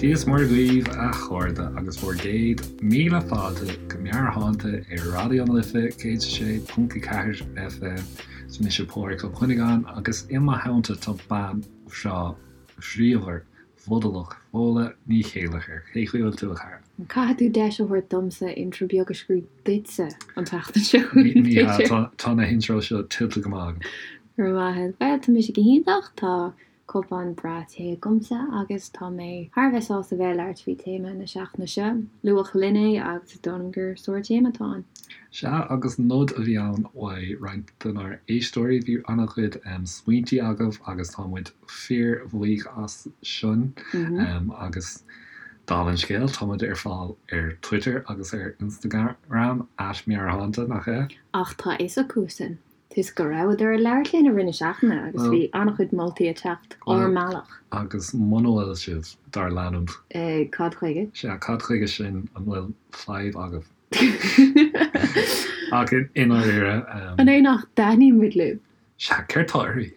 Dia is Muire dhaoibh a chairde agus bhur gcéad míle fáilte go Meabhairshláinte ar Raidió na Life 106.4 FM. Is mise Pádraig Ó Cuinneagáin agus i mo theannta tá bean bhreá bhríomhar bhfodalach Fódhla Ní Chéilleachair. Cén chaoi a bhfuil tú a chara? Caithfidh tú deis a thabhairt domsa intro beag a scríobh duitse an tseachtain seo. Ní hea, tá na hintros seo tuillte go maith agam. Go raibh maith agat. Bhuel, tá mise go hiontach, tá Cupán breá tae agamsa agus tá mé thar a bheith sásta bheith ag labhairt faoi téama na seachtaine seo. Luadh linn é agus is dóigh liom gur sár-téama atá ann. Sea, agus nod a bhí ann uaidh roinnt denár éisteoirí. Bhí an-chuid smaointí agaibh agus tá muid fíor-bhuíoch as sin. Agus dála an scéil, tá muid ar fáil ar Twitter agus ar Instagram, at Meabhairshláinte, nach ea? Ach tá a fhios acu sin. Toisc go rabhadar ag labhairt linn i rith na seachtaine agus bhí an-chuid moltaí ag teacht ár mbealach. Agus muna bhfuil sibh dár leanúint. Cad chuige? Sea, cad chuige sin? An bhfuil fadhb agaibh? Ach i ndáiríre. An é nach dtaitníonn muid libh? Sea, céard tá oraibh?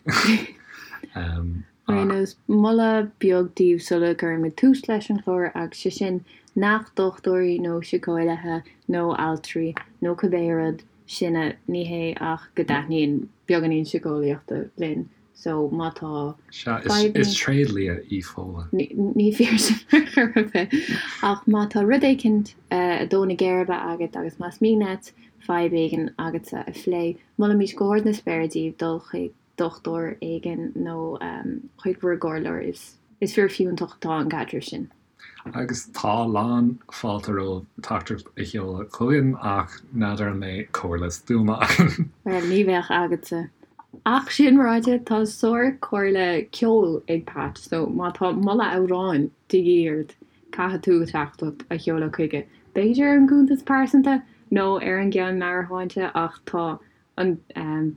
Ar aon nós, moladh beag daoibh sula gcuirimid tús leis an chlár agus sé sin nach dochtúirí nó síceolaithe nó altraí nó cibé rud sinne, ní hé ach go dtaitníonn beagáinín síceolaíochta linn so má tá Sea, fadhbanna. is tréidlia í Fódhla. Ní fíor sin ar chor ar bith. Ach má tá rud éicint ag dó na geirbe agat agus más mian leat fadhb éigin agatsa a phlé, molaimid go hard na spéire daoibh dul chuig dochtúir éigin nó chuig bhur gcomhairleoir. Is fíorfhiúntach atá an caidreamh sin. Agus tá lán fáilte romhaibh teachtaireacht a sheoladh chugainn ach n'fheadar an mbeidh comhairle stuama againn. Bhuel, ní bheadh agatsa. Ach sin ráite, tá sár-chomhairle ceoil ag Pat, so má tá moladh amhráin de dhíth ort, caithfidh tú teachtaireacht a sheoladh chuige. B'fhéidir ar an gcuntas pearsanta nó ar an gceann Meabhairshláinte ach tá an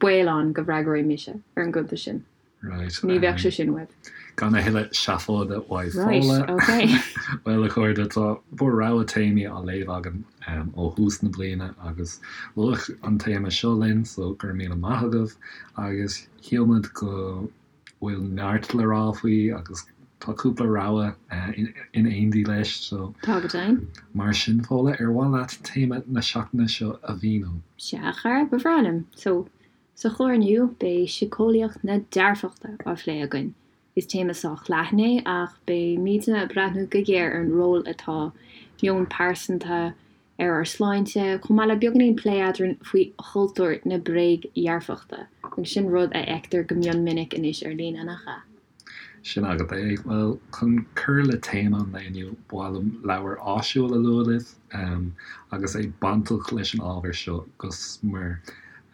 baol ann go bhfreagróidh mise ar an gcuntas sin. Right. Ní bheadh sé sin uaibh. Gan a thuilleadh seafóide uaidh Fódhla. Right, ok. Bhuel, a chairde, tá bhur rogha téamaí á léamh againn ó thús na bliana agus luadh an téama seo linn, so go raibh míle maith agaibh agus shíl muid go bhfuil neart le rá faoi agus tá cúpla rogha in éindí leis, so. Tá go deimhin. Mar sin, Fódhla, ar mhaith leat téama na seachtaine seo a mhíniú? Sea, a chara, ba bhreá liom. So, Sa chlár inniu, beidh síceolaíocht na dearfachta á phlé againn. Is téama sách leathan é, ach beimidne ag breathnú go géar ar an ról atá meon pearsanta ar ár sláinte, chomh maith le beagáinín plé eadrainn faoi chultúr na bréagdhearfachta, agus sin rud a fheictear go mion minic anois ar líne, nach ea? Sin agat é. Bhuel, chun cur le téama an lae inniu, ba mhaith liom leabhar áisiúil a lua libh, agus é bainteach leis an ábhar seo go smior.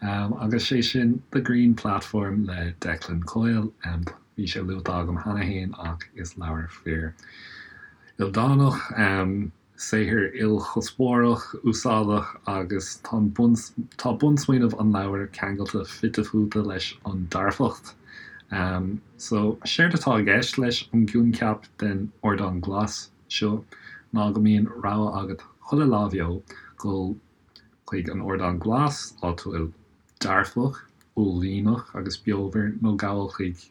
Agus sé sin The Green Platform le Declan Coyle. Bhí sé luaite agam cheana féin ach is leabhar fíor ildánach, Saothar ilchuspóireach, úsáideach agus tá tá bunsmaoineamh an leabhair ceangailte fite fuaite leis an dearfacht. So, séard atá i gceist leis an gcoincheap den ardán glas seo ná go mbíonn rogha agat chuile lá bheo dul chuig an ardán glas, áit a bhfuil dearfach, uaillmhianach agus beomhar, nó gabháil chuig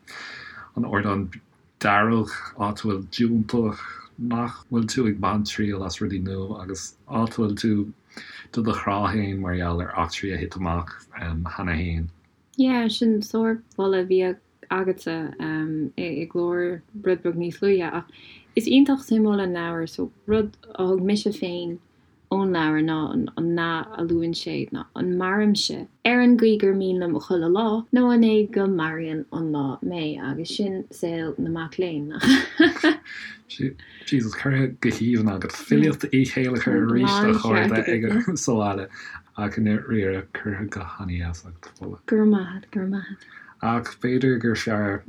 an ardán dearg, áit a bhfuil diúltach, nach bhfuil tú ag baint triail as rudaí nua agus áit a bhfuil tú do do chrá féin mar gheall ar eachtraí a thit amach cheana féin. Yeah, sin sármholadh a bhí agatsa i gclár rud beag níos luaithe ach is iontach suimiúil an leabhar so rud a thug mise féin ón leabhar ná an nath a luann sé ná an mairimse ar an gcaoi gur mian liom chuile lá nó an é go maraíonn an lá mé agus sin saol na mac léinn, nach ea? Jesus, curtha go haoibhinn agat. Filíocht Uí Chéilleachair arís a chairde ag sa bhaile ach i ndáiríre curtha go han-dheas agat, Fódhla. Go raibh maith agat, go raibh maith agat. Ach b'fhéidir gur fearr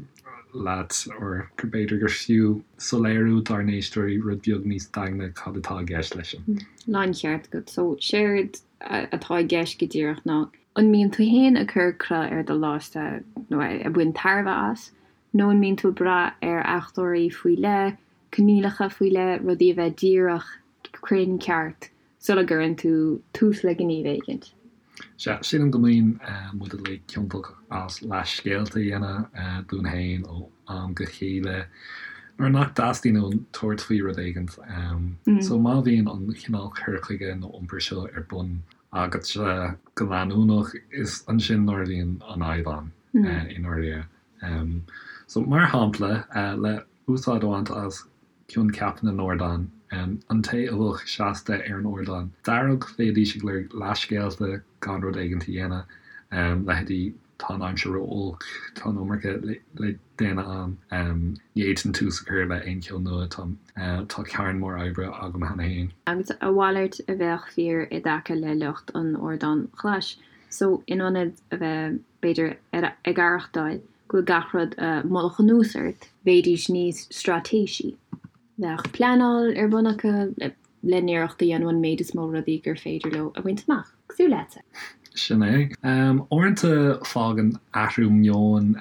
leat, or b'fhéidir gur fiú soiléiriú dár n-éisteoirí rud beag níos daingne cad atá i gceist leis sin. Láncheart agat. So, séard atá i gceist go díreach ná, an mbíonn tú fhéin ag cur cruth ar do lá-sa nó ag baint tairbhe as, nó an mbíonn tú ag brath ar fhachtóirí faoi leith, coinníollacha faoi leith, rudaí a bheith díreach cruinn ceart sula gcuireann tú tús le gníomh éigint. Sea, sílim go mbíonn muid uilig ciontach as leathscéalta a dhéanamh dúinn féin ó am go chéile. Nuair nach dteastaíonn uainn tabhairt faoi rud éigint. So má bhíonn an chineál cur chuige nó iompair seo ar bun agatsa go leanúnach, is ansin nuair a bhíonn an fhadhb ann i ndáiríre. So mar shampla, le úsáid a bhaint as coincheap na n-ardán, an té a bheadh seasta ar an ardán dearg, bheidís ag lorg leathscéalta gan rud éigint a dhéanamh, leithéidí tá an aimsir ró-olc, tá an iomarca le déanamh a'm, ní fhéadfainn tús a chur le aon cheo nua, tá carn mór oibre agam cheana féin. Agus a mhalairt a bheadh fíor i dtaca le lucht an ardáin ghlais. So, in ionad a bheith, b'fhéidir, ag aireachtáil go bhfuil gach rud i mullach anuas ort, bheidís níos straitéisí. Bheadh pleanáil ar bun acu le n-iarracht a dhéanamh an méid is mó rudaí gur féidir leo a bhaint amach. Cosúil leatsa. Sin é. Uaireanta fágann athrú meoin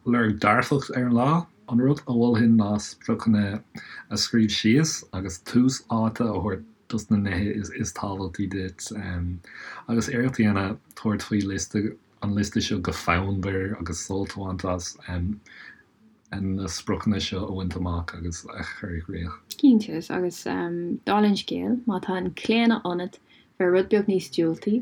lorg dearfach ar an lá. An rud a mholfainn ná spriocanna a scríobh síos agus tús áite a thabhairt dos na nithe is tábhachtaí duit agus iarracht a dhéanamh tabhairt faoi liosta an liosta seo go fonnmhar agus sult a bhaint as. na spriocanna seo a bhaint amach agus a chur i gcrích. Cinnte, agus dála an scéil, má tá an claonadh ionat bheith rud beag níos diúltaí,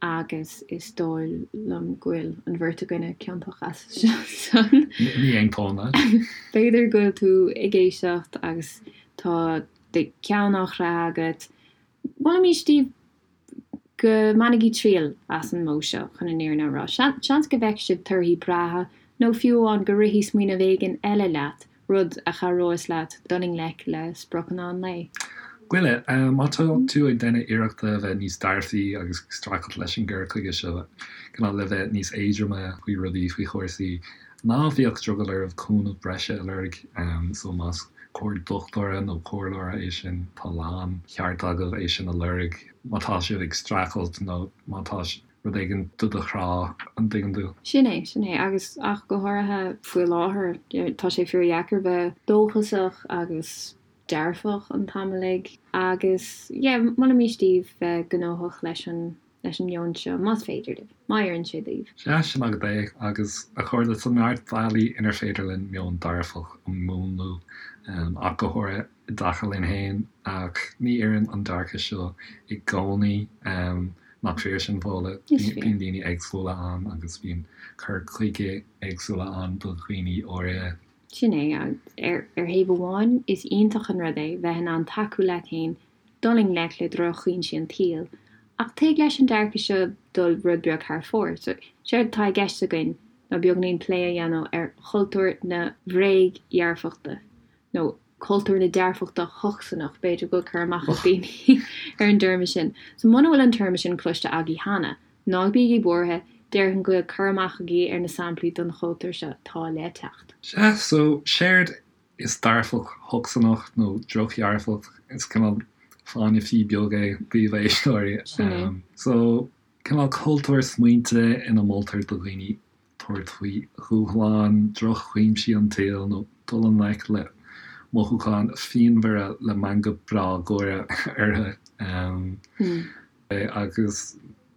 agus is dóigh liom go bhfuil an bheirt againne ciontach as san. Ní aontóinn leat. B'fhéidir go bhfuil tú ag éisteacht agus tá do cheann á chraith agat, molaimís daoibh go mbainigí triail as an modh seo, chun an fhírinne a rá. Seans go bhfeicfidh sibh torthaí breátha, nó fiú amháin go rithfidh smaoineamh éigin eile leat, rud a chabhróas leat dul i ngleic le spriocanna an lae. Goile, má tá tú ag déanamh iarrachta a bheith níos dearfaí agus ag streachailt leis an gcur chuige seo, cineál le bheith níos éadroime faoi rudaí, faoi chúrsaí, Ná bíodh drogall oraibh cúnamh breise a lorg, so más comhairle dochtúra nó comhairleora é sin, tá lán cheart agaibh é sin a lorg má tá sibh ag streachailt nó má tá rud éigin do do chrá, an dtuigeann tú? Sin é, sin é, agus ach go háirithe faoi láthair, tá sé fíordheacair bheith dóchasach agus dearfach an t-am uilig agus yeah, molaimís daoibh bheith gnóthach leis an leis an meon seo, más féidir libh, má oireann sé daoibh. Sea, sin agat é, agus a chairde, tá neart bealaí inar féidir linn meon dearfach a mhúnlú, ach go háirithe i dtaca linn féin, ach ní oireann an dearcadh seo i gcónaí, nach fíor sin, Fódhla? Is fíor. Bíonn daoine éagsúla ann agus bíonn cur chuige éagsúla ann do dhaoine áirithe. Sin é, ar thaobh amháin, is iontach an rud é bheith in ann tacú leat féin dul i ngleic le drochfhoinsí an tsaoil, ach tig leis an dearcadh seo dul rud beag thar fóir. So, séard atá i gceist againn ná beagáinín plé a dhéanamh ar chultúr na bhréagdhearfachta, nó cultúr na dearfachta thocsaineach, b'fhéidir go bhfuil cur amach ag daoine ar an dtéarma sin. So, muna bhfuil an téarma sin cloiste agaibh cheana, ná bígí buartha, déarfainn go bhfuil cur amach agaibh ar na samplaí den chultúr seo atá le teacht. Sea, so, séard Is dearfacht thocsaineach nó drochdhearfacht, is cineál fáinne fí beag é daoibh a éisteoirí. Sin é. So, cineál cultúr smaointe ina moltar do dhaoine tabhairt faoi dhúshláin, drochfhoinsí an tsaoil nó dul i ngleic le mothúcháin phianmhara le meangadh breá gáire orthu. Agus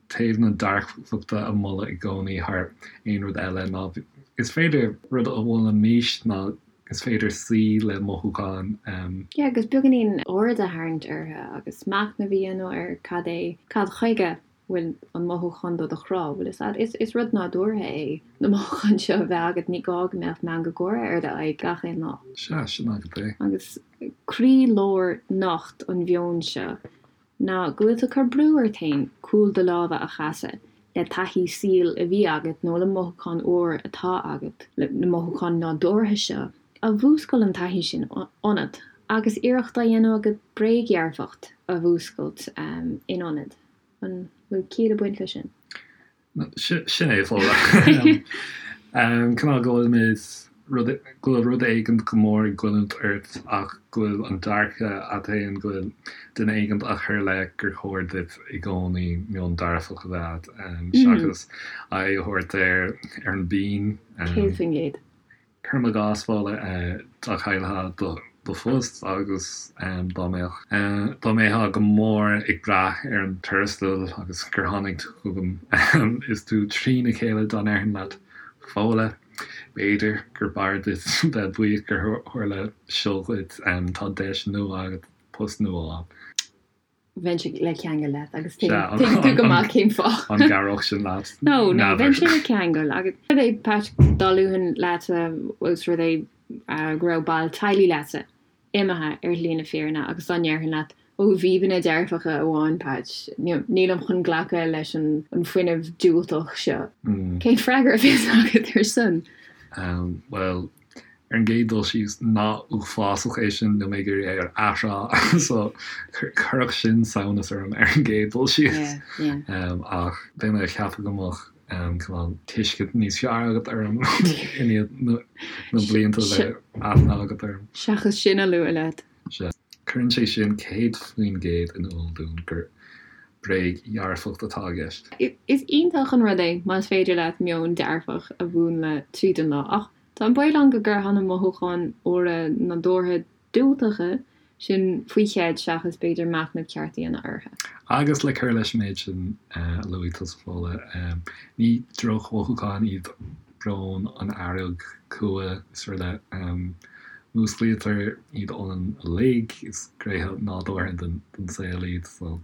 taobh na dearfachta a mholadh i gcónaí thar aon rud eile ná is féidir, rud a mholaimis ná is féidir suí le mothúcháin. Yeah, agus beagáinín aird a tharraingt orthu agus machnamh a dhéanamh ar cad é, cad chuige bhfuil an mothúchán do do chrá, bhfuil fhios a'd. Is, is rud nádúrtha é na mothúcháin seo a bheith agat, ní gá go mbeadh meangadh gáire ar d'aghaidh gach aon lá. Sea, sin agat é. Agus croílár nocht an mheoin seo ná go bhfuil tú ag cur brú ort féin cúl do láimhe a chasadh le taithí saoil a bhí agat nó le mothúchán úr atá agat, le na mothúcháin nádúrtha seo a mhúscail an taithí sin ionat agus iarracht á dhéanamh agat bréagdhearfacht a mhúscailt in ionad. An bhfuil ciall ag baint leis sin? Sin é, Fódhla. Cineál go bhfuilimid, rud, go bhfuil rud éigint go mór ag goilliúint ort ach go bhfuil an dearcadh a't fhéin go bhfuil duine éigint á chur i leith gur chóir duit i gcónaí meon dearfach a bheith a't seachas aghaidh a thabhairt ar ar an bpian. 100%. Cuirim i gcás, Fódhla, dá gcaillfeá do phost agus dá mbeadh, dá mbeifeá go mór ag brath ar an tuarastal agus gur tháinig tú chugam is tú trína chéile dá ndéarfainn leat, Fódhla. B'fhéidir gur b'fhearr duit bheith buíoch gur tharla seo dhuit, tá deis nua agat post nua a fháil. Bheinnse le ceangal leat agus tuigeann tú go maith cén fáth. An gcabhródh sin leat? No, no, bheinnse le ceangal agus rud é Pat dá luafainn leatsa os rud é go raibh ball teaghlaigh leatsa imithe ar shlí na fírinne agus dá ndéarfainn leat ó bhíbeanna dearfacha amháin Pat, nílim chun glacadh leis an fuinneamh diúltach seo. Cén freagra a bheas agat ar sin? Bhuel, Ar an gcéad dul síos, nath uafásach é sin, níl mé ag iarraidh é a athrá, so chuirfeadh sin samhnas orm ar an gcéad dul síos. Ach beidh mé ag ceapadh go mbeadh cineál tuiscint níos fearr agat orm i ndiaidh na blianta a bheith aithne agat orm. Seachas sin a lua leat. Sea. Cuireann sé sin 100% in iúl dúinn gur bréag-dhearfacht atá i gceist. Is iontach an rud é más féidir leat meon dearfach a mhúnlú tríd an lá, ach Tá an baol ann go gcuirfeá na mothúcháin fhuara nádúrtha diúltacha sin faoi cheid seachas b'fhéidir machnamh ceart a dhéanamh orthu. Agus le cur leis an méid sin a luaigh tusa, Fódhla, ní drochmhothúcháin iad brón, an fhearg, cumha is araile. Músclaítear iad ionainn uilig, is gnéithe nádúrtha den saol iad, so.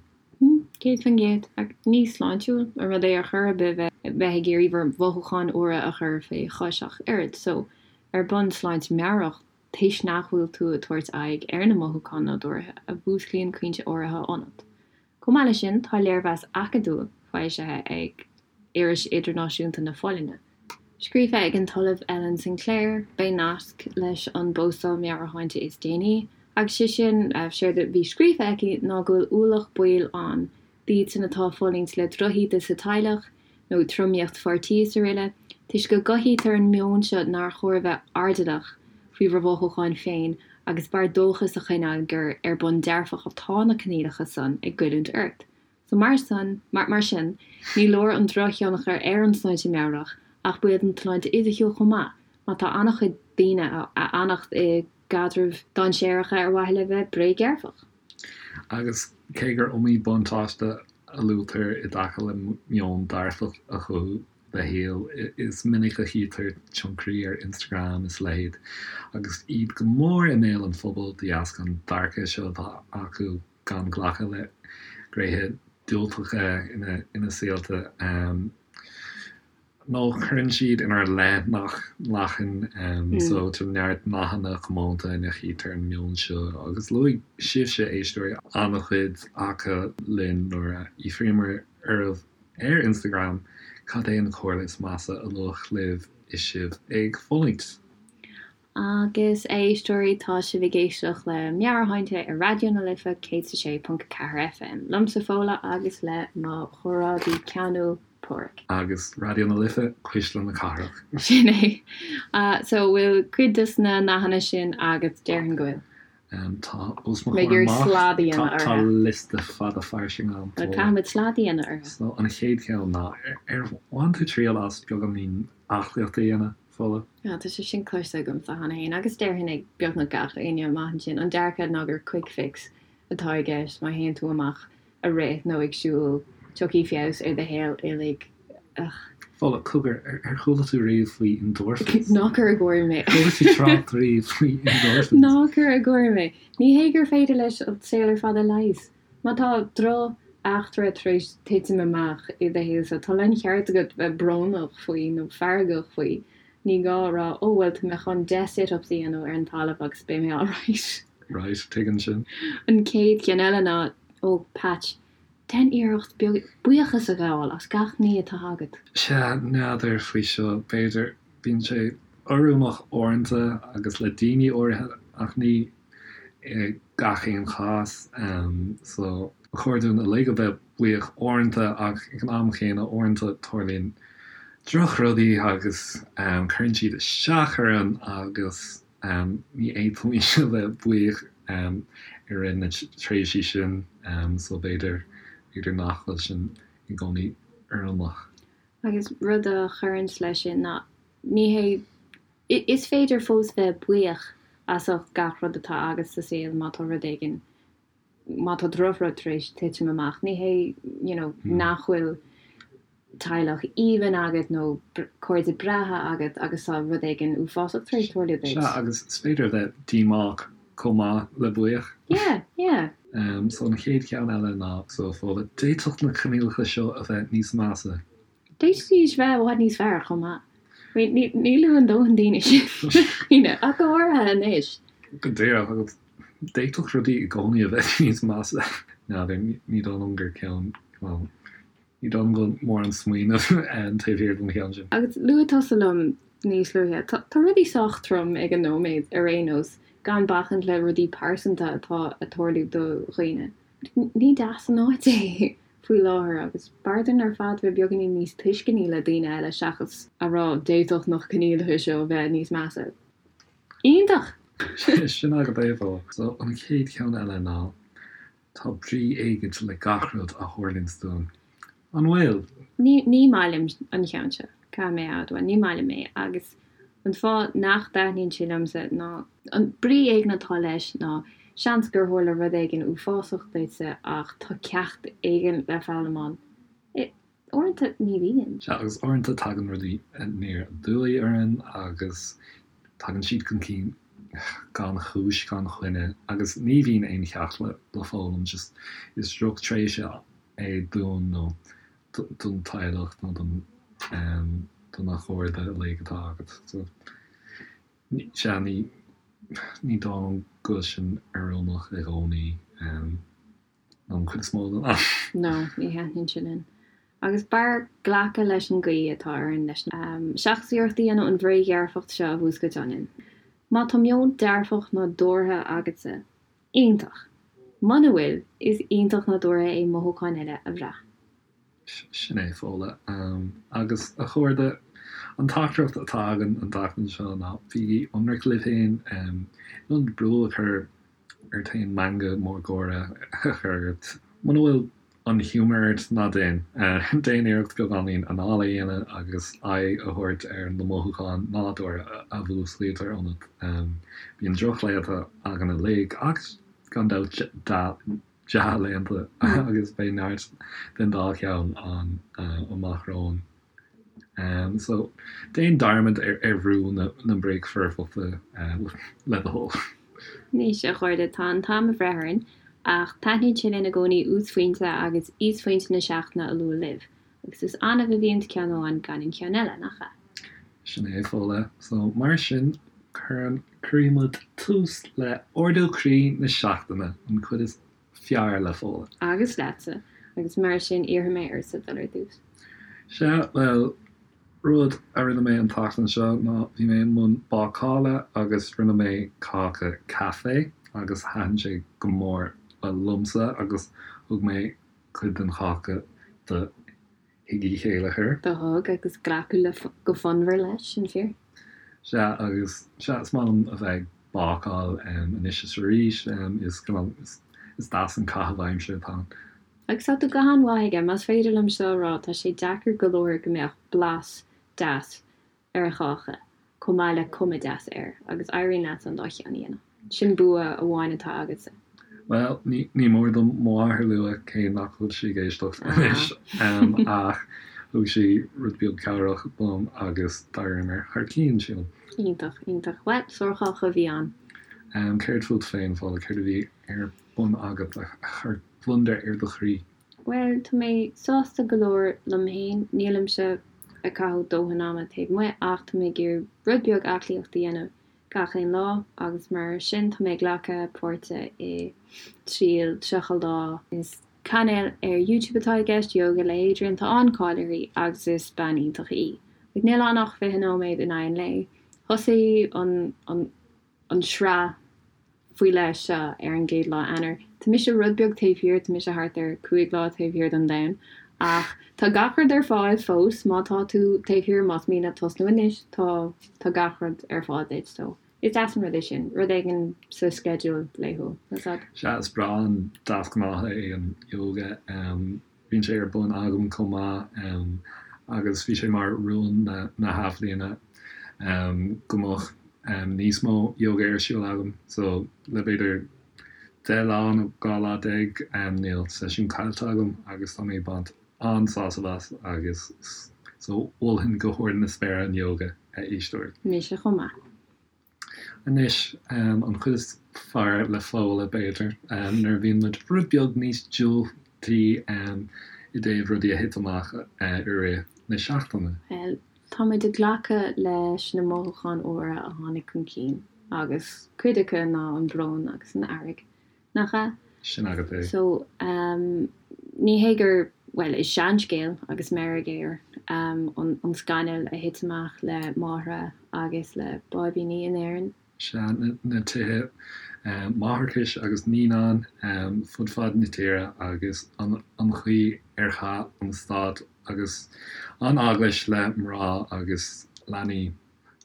100%. Ach ní sláintiúil an rud é ar chor ar bith bheith ag iarraidh bhur mhothúcháin fhuara a chur fé chois ach oiread. So, ar bun sláinte meabhrach, toisc nach bhfuil tú ag tabhairt aghaidh ar na mothúcháin nádúrtha a mhúsclaíonn caointe áirithe ionat. Chomh maith leis sin, tá léirmheas acadúil foilsithe ag Iris Idirnáisiúnta na Folláine. Scríofa ag an tOllamh Ellen Sinclair, beidh nasc leis an bpostáil meabhairshláinte is déanaí, agus sé sin, séard a bhí scríofa aici ná go bhfuil ualach baoil ann d'iadsan atá ag fulaingt le drochíde sa teaghlach nó tromaíocht pháirtí is aroile, toisc go gcothaítear an meon seo nár chóir a bheith airdeallach faoi bhur mhothúcháin féin agus b'fhearr dóchas a choinneáil gur ar bun dearfach atá na coinníollacha san ag goilliúint ort. So mar san, mar sin, ní leor an drochthionchar ar an tsláinte meabhrach ach baol don tsláinte fhisiciúil chomh maith, má tá an-chuid daoine a fhanacht i gcaidrimh dainséaracha ar mhaithe le bheith bréagdhearfach. Agus cé gur iomaí buntáiste a luaitear i dtaca le meon dearfach a chothú do shaol, is minic a chítear tionchairí ar Instagram is a leithéid agus iad go mór i mbéal an phobail de dheasca an dearcadh seo atá acu gan glacadh le gnéithe diúltacha ina saolta, nó cuireann siad inár leith nach nglacann. So tá neart nathanna comónta ina chítear an meon seo, agus luaigh sibhse, éisteoirí, an-chuid acu linn nuair a fhiafraíomar oraibh ar Instagram cad é an chomhairle is measa a luadh libh is sibh ag fulaingt. Agus, a éisteoirí, tá sibh ag éisteacht le Meabhairshláinte ar Raidió na Life 106.4 FM, liomsa Fódhla agus le mo chomrádaí ceanúil, Páraic. Agus Raidió na Life, cuisle na cathrach. Sin é. So, bhfuil cuid des na nathanna sin agat? Déarfainn go bhfuil. Tá os mo chomhair amach, tá liosta fada fairsing agam. Caithfimid slad a dhéanamh orthu. So, an chéad cheann ná, ar bhain tú triail as beagáinín aclaíochta a dhéanamh? Fódhla. Tá sé sin cloiste agamsa cheana féin, agus déarfainn ag beagnach gach éinne amach ansin, an dearcadh ná gur quick fix atá i gceist, má théann tú amach ag rith nó ag siúl, tiocfaidh feabhas ar do shaol uilig. Ugh. Fódhla, cogar, ar chuala tú riamh faoi endorphins? Ná cuir i gcomhair mé. Chuala tú trácht riamh faoi endorphins? Ná cuir i gcomhair mé. Ní hé gur féidir leis an saol ar fad a leigheas. Má tá droch-eachtra tar éis titim amach i do shaolsa, tá láncheart agat bheith brónach faoi nó feargach faoi. Ní gá a rá, 'Ó, bhuel, tá mé chun 10 sit-ups a dhéanamh ar an talamh agus beidh mé alright. Right, tuigim sin. An chéad cheann eile ná, Ó, Patch, déan iarracht buíochas a ghabháil as gach ní atá agat. Sea, n'fheadar faoi seo, b'fhéidir. Bíonn sé oiriúnach uaireanta agus le daoine áirithe ach ní i gach aon chás. So, ba chóir dúinn uilig a bheith buíoch uaireanta ach ag an am chéanna uaireanta tarlaíonn drochrudaí agus cuireann siad isteach orainn agus ní fhéadfaimis a bheith buíoch i rith na tréimhsí sin. So b'fhéidir, b'fhéidir nach bhfuil sin i gcónaí oiriúnach. Agus rud a chuireanns leis sin ná ní hé Is féidir fós bheith buíoch as ucht gach rud atá agat sa saol má tá rud éigin, má tá drochrud tar éis titim amach. Ní hé, you know, nach bhfuil. teaghlach aoibhinn agat nó cairde breátha agat agus tá rud éigin uafásach tar éis tarlú duit. Sea, agus is féidir a bheith díomách chomh maith le buíoch. Yeah, yeah. So an chéad cheann eile ná, so Fódhla, d'fhéadfadh na coinníollacha seo a bheith níos measa. D'fhéadfaidís bheith i bhfad níos fearr chomh maith. I mean, ní luann dóthain daoine sin, ach go háirithe anois. Go díreach, agus d'fhéadfadh rudaí i gcónaí a bheith níos measa. N'fheadar, ní dóigh liom gur ceann, bhuel, ní dóigh liom go bhfuil mórán smaoineamh taobh thiar den cheann sin. Agus luaigh tusa liom níos luaithe, tá rudaí sách trom ag an nóiméad ar aon nós, gan bacaint le rudaí pearsanta atá ag tarlú do dhaoine. Ní deas an áit é faoi láthair agus b'fhearr dúinn ar fad bheith beagáinín níos tuisceanaí le daoine eile seachas a rá d'fhéadfadh na coinníollacha seo bheith níos measa. Iontach! Sin agat é, Fódhla. So, an chéad cheann eile ná, tá brí éigint le gach rud a tharlaíonns dúinn. An bhfuil? Ní, ní maith liom an ceann seo, caithfidh mé a admháil, ní maith liom é agus an fáth nach dtaitníonn sé liomsa ná, an brí éigin atá leis ná seans gur tharla rud éigin uafásach duitse ach tá ceacht éigin le foghlaim ann. Uaireanta ní bhíonn. Sea, agus uaireanta tagann rudaí aniar aduaidh orainn agus tagann siad chun cinn gan chúis, gan choinne agus ní bhíonn aon cheacht le foghlaim, just is drochtréimhse é dúinn nó don teaghlach nó don do na cairde uilig atá agat. So, sea, ní ní dóigh liom go bhfuil sin oiriúnach i gcónaí nó an chuid is mó den am. No, ní thaitníonn sé linn. Agus b'fhearr glacadh leis an gcaoi atá orainn leis seachas iarracht a dhéanamh an bhréagdhearfacht seo a mhúscailt ionainn. Má tá meon dearfach nádúrtha agatsa, Iontach. Muna bhfuil, is iontach nádúrtha é mothúcháin eile a bhrath. Sin é, Fódhla. Agus, a chairde, an teachtaireacht atá againn an tseachtain seo ná bígí ionraic libh féin. In ionad brú a chur ort féin meangadh mór gáire a chur ort, muna bhfuil an giúmar ort, ná déan. Déan iarracht beagáinín anála a dhéanamh agus aghaidh a thabhairt ar na mothúcháin nádúrtha a mhúsclaítear ionat. Bíonn drochlaethanta againn uilig, ach gan dabht dea-laethanta, agus beidh neart den dá cheann ann amach romhainn. So, déan dearmad ar bhrú na bréagfhoirfeachta le do thoil. Anois, a chairde, tá an t-am ag breith orainn, ach taitníonn sé linn i gcónaí uasphointe agus íosphointe na seachtaine a lua libh, agus is annamh a bhíonns ceann amháin gan an ceann eile, nach ea? Sin é, Fódhla. So, mar sin, cuireann, cuirfidh muid tús le Ardú Croí na Seachtaine, an chuid is fearr le Fódhla. Agus leatsa, agus mar sin iarrfaidh mé ortsa dul ar dtús. Sea, bhuel, rud a rinne mé an tseachtain seo ná bhí mé i mbun bácála agus rinne mé cáca caife agus thaitin sé go mór liomsa agus thug mé cuid den cháca do Thigh Uí Chéilleachair. Do thug, agus glacadh le go fonnmhar leis, sin fíor. Sea, agus sea, is maith liom a bheith ag bácáil anois is arís, is cineál, is deas an caitheamh aimsire atá ann. Agus tá tú go han-mhaith aige, más féidir liom seo a rá, tá sé deacair go leor go mbeadh blas deas ar cháca, chomh maith le cuma deas air, agus éiríonn leat an dá cheann a dhéanamh. Sin bua amháin atá agatsa. Bhuel, ní mór dom mo mháthair a lua, cé nach bhfuil sí ag éisteacht anois, ach thug sí rud beag cabhrach dom agus d'éiríomar thar cionn, sílim. Iontach, iontach. Bhuel, sárcháca a bhí ann. Céard fút féin, Fódhla, céard a bhí ar bun agat a chuir gliondar ar do chroí? Bhuel, tá mé sásta go leor liom féin. Nílimse ag caitheamh dóthain ama taobh amuigh ach tá mé ag iarraidh rud beag aclaíochta a dhéanamh gach aon lá agus mar sin tá mé ag glacadh páirte i triail 30 lá. Is cainéal ar YouTube atá i gceist, Yoga le Adriene. Tá an-cáil uirthi agus is bean iontach í. Níl ann ach 20 nóiméad in aghaidh an lae. Thosaigh an an an sraith faoi leith seo ar an gcéad lá Eanáir. Tá mise rud beag taobh thiar, tá mise thart ar 5 lá taobh thiar den domhan, ach tá gach rud ar fáil fós má tá tú taobh thiar, más mian leat tosnú anois, tá tá gach rud ar fáil duit, so is deas an rud é sin, rud éigin sa sceideal laethúil, tá a fhios a'd. Sea, is breá an deasghnáth é an yoga. Bíonn sé ar bun agam chomh maith agus bhí sé mar rún na hathbhliana go mbeadh níos mó yoga ar siúl agam. So le b'fhéidir 10 lá nó 12 lá níl seisiún caillte agam agus tá mé ag baint an-sásamh as agus so mholfainn go hard na spéire an yoga, a éisteoirí. Mise chomh maith. Anois, an chuid is fearr le Fódhla, b'fhéidir, nuair a bhíonn muid rud beag níos diúltaí i dtaobh rudaí a thit amach i rith na seachtaine. Bhuel, tá muid ag glacadh leis na mothúcháin úra a tháinig chun cinn, agus cuid acu ná an brón agus an fhearg. Nach ea? Sin agat é. So, ní hé gur, bhuel, is seanscéal agus meirg air an scannal a thit amach le máithreacha agus le báibíní in Éirinn. Sea, na tithe máithreachais agus naíonán fud fad na tíre agus an chaoi ar chaith an stát agus an eaglais le mná agus leanaí.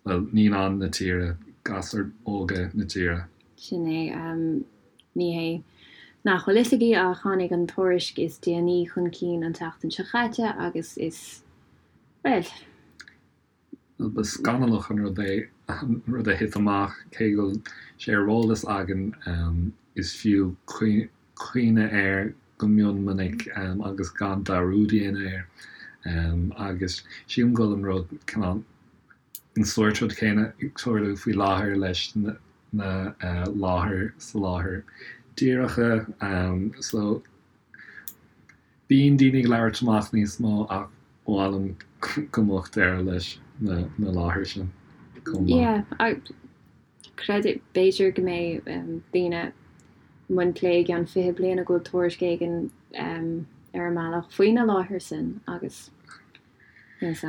bhuel, naíonáin na tíre, gasúir óga na tíre. Sin é. Ní hé nach bhfuil fhios agaibh ach tháinig an tuairisc is déanaí chun cinn an tseachtain seo chaite agus is, bhuel. Bhuel, ba scannalach an rud é an rud a thit amach, cé go bhfuil sé ar eolas againn, is fiú cuimhneamh air go mion minic agus gan dearúd a dhéanamh air. Agus sílim go bhfuil an rud, cineál, an sórt rud céanna ag tarlú faoi láthair leis na láthair soláthair díreacha. So bíonn daoine ag labhairt amach níos mó ach ba mhaith liom go mbeadh deireadh leis na láthair sin chomh maith. Yeah, Creid, b'fhéidir go mbeidh daoine i mbun plé i gceann 20 bliain go bhfuil tuairisc éigin ar an mbealach faoi na láthair sin agus is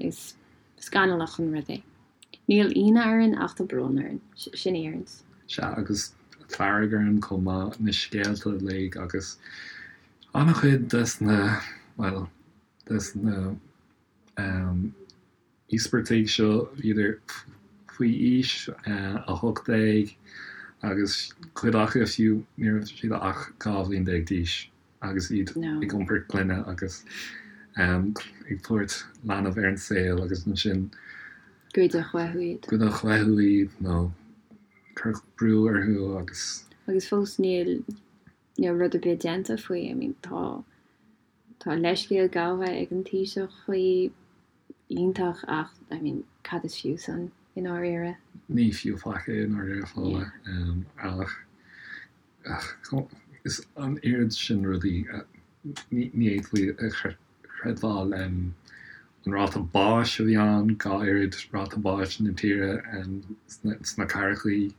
is scannalach an rud é. Níl ionadh orainn ach tá brón orainn. Sin í orainn. Sea, agus fearg orainn chomh maith, na scéalta uilig agus an-chuid des na, bhuel, des na íospartaigh seo, bhíodar faoi aois 18 agus cuid acu fiú ní raibh siad ach 12 bhliain d'aois agus iad ag iompar clainne agus ag tabhairt leanbh ar an saol agus ansin goideadh uathu iad. Goideadh uathu iad nó cuireadh brú orthu agus. Agus fós níl níl rud ar bith déanta faoi. I mean tá tá leithscéal gabhtha ag an Taoiseach faoi, iontach ach I mean cad is fiú san i ndáiríre? Ní fiú faic é i ndáiríre Fódhla ach is an oiread sin rudaí ní fhéadfaí a chreidbheáil. An ráta báis a bhí ann, 2 oiread ráta báis na tíre sna cathrachaí.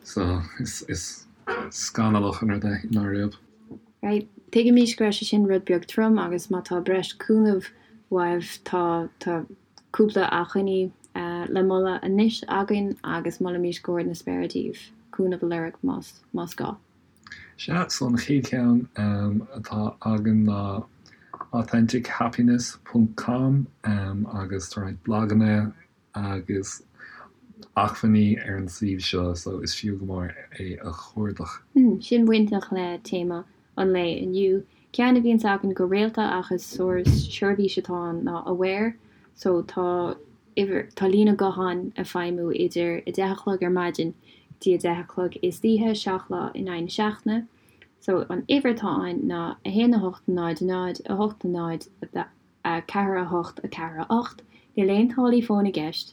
So is scannalach an rud é i ndáiríre. Right. Tuigimís go raibh sé sin rud beag trom agus má tá breis cúnamh uaibh tá tá cúpla acmhainní le moladh anois againn agus molaimís go hard na spéire daoibh cúnamh a lorg más más gá. Sea, so an chéad cheann atá againn ná authentichappiness ponc com agus tá roinnt blaganna agus acmhainní ar an suíomh seo so is fiú go mór é a chuardach. Sin bainteach le téama an lae inniu. Ceann a bhíonns againn go rialta ach is seirbhís atá ann ná Aware so tá uimhir, tá líne gutháin ag feidhmiú idir 10 a chlog ar maidin go dtí 10 a chlog istoíche, 7 lá in aghaidh na seachtaine. So an uimhir atá ann ná 1 8 0 0 8 0 4 8 4 8. Níl aon táillí fóin i gceist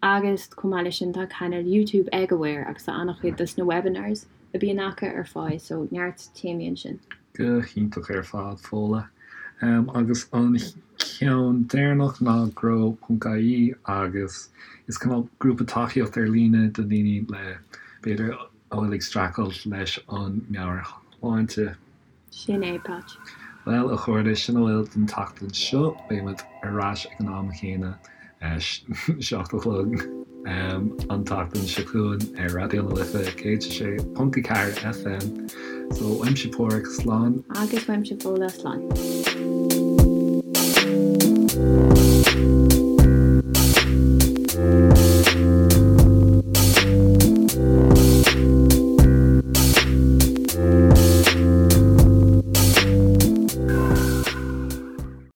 agus chomh maith leis sin tá cainéal YouTube ag Aware agus tá an-chuid dos na webinars a bhíonn acu ar fáil so neart téamaí ansin. Go hiontach ar fad, Fódhla. Agus an ceann deireanach ná grow.ie agus is cineál grúpa tacaíocht ar líne do dhaoine le, b'fhéidir, a bhfuil ag streachailt leis an meabhairshláinte. Sin é, Patch. Bhuel, a chairde, sin a bhfuil don tseachtain seo. Beidh muid ar ais ag an am chéanna, 7 a chlog, an tseachtain seo chugainn ar Raidió na Life 106.4 FM. So, uaimse Páraic, slán. Agus uaimse Fódhla, slán.